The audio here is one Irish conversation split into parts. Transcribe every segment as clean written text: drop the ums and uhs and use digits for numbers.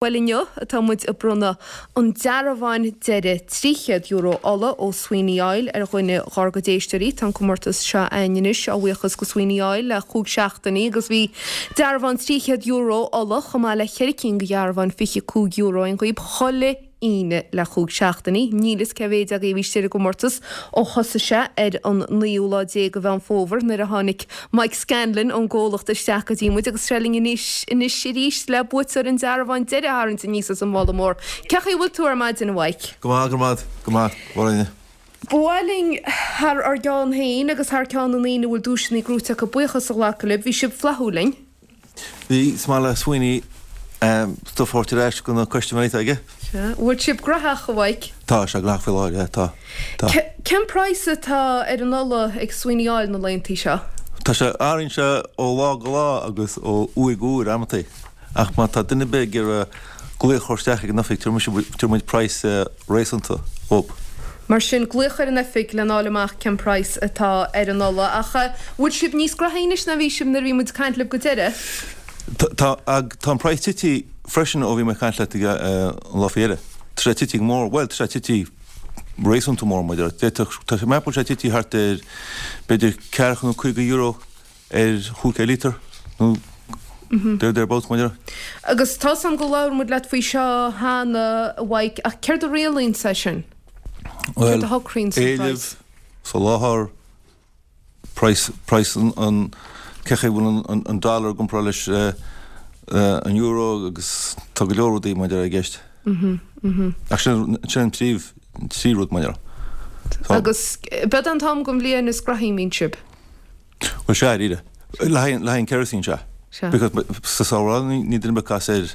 Bhuel inniu atá muid ag bronnadh an dearbháin deiridh €300 ola ó Sweeney Oil ar dhuine dhár gcuid éisteoirí. Tá an comórtas seo againn anois á bhuíochas go Sweeney Oil le chúig seachtainí agus bhí dearbhán €300 ola chomh maith le cheithre cinn de dhearbháin €25 againn dhaoib chuile Aoine le chúig seachtainí. Níl fhios cé mhéid agaibh a bhí istigh ar an gcomórtas ó thosaigh sé ar an naoú lá déag de Mheán Fómhair nuair a tháinig Mike Scanlon ón gcomhlacht isteach go dtí muid agus tá sé linn anois anois arís le buaiteoir an dearbháin deiridh a tharraingt aníos as an mhála mór. Cén chaoi a bhfuil tú ar maidin, a Mhaidhc? Go maith, go maith, go maith, a Mháirín. Ba mhaith linn thar ár gceann féin agus thar ceann na ndaoine a bhfuil duaiseanna gnóite acu buíochas a ghlacadh libh. Bhí sibh flaithiúil linn. Bhí, is maith le Sweeney stuif a thabhairt ar ais go na custaiméirí atá aige. Sea. Bhfuil sibh graitheach, a Mhaidhc? Tá sé graitheach faoi láthair, yeah, tá. Tá. Cén praghas atá ar an ola ag Sweeney Oil na laethantaí seo? Tá sé, athraíonn sé ó lá go lá agus ó uair go huair amantaí. Ach má tá duine ar bith ag iarraidh glaoch a chur isteach ag an oifig, tabharfaidh muid praghas réasúnta dhób. Mar sin, glaoch ar an oifig lena fháil amach cén praghas atá ar an ola. Ach bhfuil sibh níos graithí anois ná bhí sibh nuair a bhí muid ag caint libh go deireadh? Tá, tá an praghas tití freisin ó bhí mé ag caint leat an lá faoi dheireadh. Tá sé tití go mór, bhuel, tá sé tití réasúnta mór, mar a déarfá. D'fhéadfadh, tá sé, meapaim go bhfuil sé tití thart ar b'fhéidir ceathracha nó €50 ar chúig líotar nó there thereabouts, mar a déarfá. Agus tá's a'm go labhair muid leat faoi seo cheana, a Mhaidhc, ach céard a rialaíonn é sin? Céard a shocraíonn an praghas? Éileamh, soláthar, praghas, praghas an, cé chaoi bhfuil an dollar i gcomparáid leis an euro agus tá go leor rudaí mar a déarfá i gceist. Ach sin, sin an príomh, trí rud mar a déarfá. Agus b'eod an t-am den bhliain is graithí a mbíonn sibh? Bhuel sea, dáiríre. Le haghaidh an kerosene, sea. Sea. Because sa samhradh ní duine ar bith ag casadh air,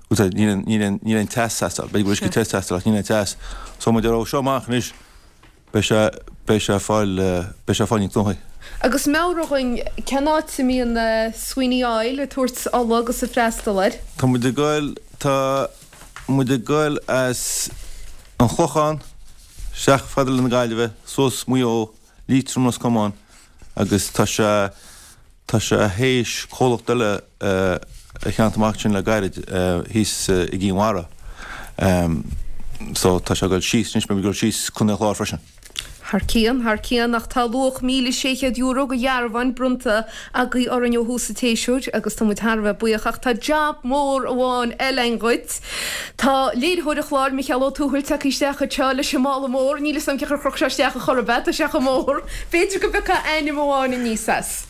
bhuel níl aon, níl aon, níl aon teas ag teastáil. B'fhéidir go bhfuil uisce te ag teastáil ach níl aon teas. So mar a déarfá ó seo amach anois beidh sé, beidh sé ag fáil, beidh sé ag fáil níos gnóthaí. Agus meabhraigh dhuinn, cén áit a mbíonn Sweeney Oil ag tabhairt ola agus ag freastal air? Tá muid ag goil, tá muid ag goil as an Chlochán isteach fada le na Gaillimhe, suas Maigh Eo, Liatroim Ros Comáin agus tá sé tá sé théis comhlacht eile a cheannacht amach ansin le gairid thíos i gCinn Mhara so tá sé ag dul síos anois beidh ag dul síos Contae an Chláir freisin. Thar cionn, thar cionn, ach tá luach €1,600 de dhearbháin bronnta agaibh orainn ó thús an tséasúir agus tá muid thar a bheith buíoch ach tá jab mór amháin eile againn dhuit. Tá léiritheoir an chláir, Micheál Ó Tuathail, tagtha isteach anseo leis an mála mór. Níl 'fhios a'm cén chaoi ar chroch sé isteach ar chor ar bith, tá sé chomh mór. B'fhéidir go bpiocfá ainm amháin aníos as.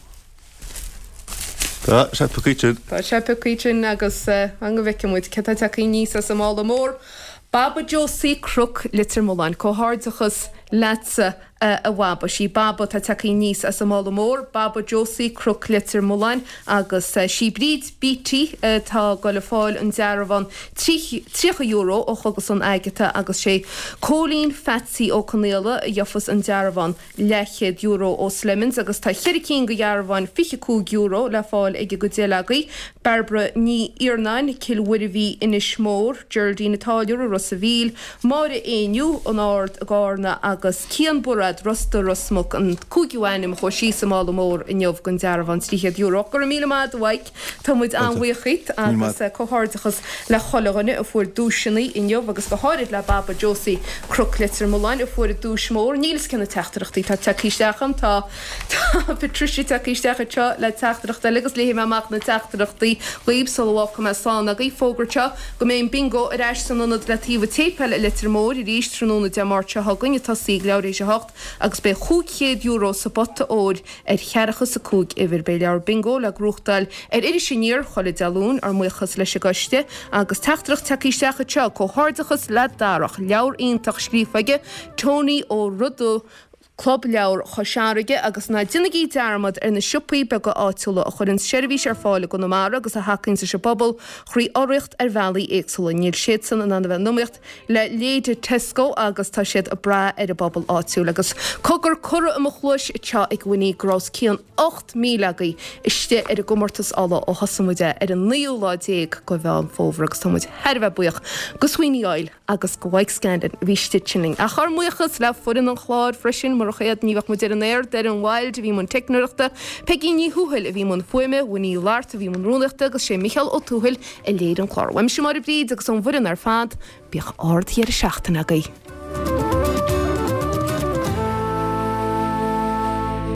Tá sé pioctha sin. Tá sé pioctha sin agus an go bhfeicfidh muid cé tá tagtha aníos as an mála mór. Baba Josie Cnoc Leitir Mealláin. Comhghairdeachas leatsa. a Bhaba. Sí Baba atá tagtha aníos as an mála mór, Baba Josie, Cnoc Leitir Mealláin, agus sí Bríd Beattie atá ag goil a fáil an dearbhán €30 ó Chógaslann Agatha agus sé Cóilín Pheatsaí Ó Conaola a gheofas an dearbhán leathchéad euro ó Slemons agus tá cheithre cinn de dhearbháin €25 le fáil ag an gcuid eile agaibh, Bairbre Ní Iarnáin, Cill Mhuirbhigh, Inis Mór, Geraldine an Táilliúra, Ros a' Mhíl, Máire Éinniú, An Ard i gCarna agus Cian Bairéad, Ros Dumha, Ros Muc, an cúigiú ainm a chuaigh síos sa mála mór inniu don dearbhán €300. Go raibh míle maith agat a Mhaidhc, tá muid an-bhuíoch dhíot agus comhghairdeachas le chuile dhuine a fuair duaiseanna inniu agus go háirid le Baba Josie Cnoc Leitir Mealláin a fuair an duais mhór. Níl 'fhios cé na teachtaireachtaí atá tagtha isteach agam, tá Tá Patricia tagtha isteach anseo le teachtaireacht eile agus léifidh mé amach na teachtaireachtaí dhaoibh sula bhfágfaidh mé slán agaibh. Fógairt seo go mbeidh an Bingo ar ais san ionad le taobh an tséipéil i Leitir Móir arís tráthnóna Dé Máirt seo chugainn ag tosaí ag leathuair théis a hocht agus beidh €500 sa bpota óir ar cheathracha is a cúig uimhir. Beidh leabhar Bingo le gnóthachtáil ar Iris Aniar chuile Dé Luain, ár mbuíochas leis an gcoiste agus teachtaireacht tagtha isteach anseo, Comhghairdeachas le Darach, leabhar iontach scríofa aige, Tony Ó Rodaigh, Club Leabhar Chois Fharraige agus ná déanaigí dearmad ar na siopaí beaga áitiúla a chuireann seirbhís ar fáil i gConamara agus a thacaíonn leis an bpobal thrí urraíocht ar bhealaí éagsúla. Níl siadsan in ann a bheith in iomaíocht le leithéide Tesco agus tá siad ag brath ar an bpobal áitiúil. Agus cogar curtha i mo chluais anseo ag Winnie go raibh os cionn 8,000 agaibh istigh ar an gcomórtas ola ó thosaigh muid é ar an naoú lá déag de Mheán Fómhair agus tá muid thar a bheith buíoch go Sweeney Oil agus go Mike Scanlon a bhí istigh ansin linn. Ach ár mbuíochas le foireann an chláir freisin, mar. Murach iad ní bheadh muid ar an aer, Doireann Wilde a bhí i mbun teicneoireachta, Peigí Ní Thuathail a bhí i mbun fuaime, Winnie Lart a bhí i mbun rúnaíochta agus sé Micheál Ó Tuathail a léirigh an clár. Uaimse Máire Bríd agus ón bhfoireann ar fad, bíodh ard-dheireadh seachtaine agaibh.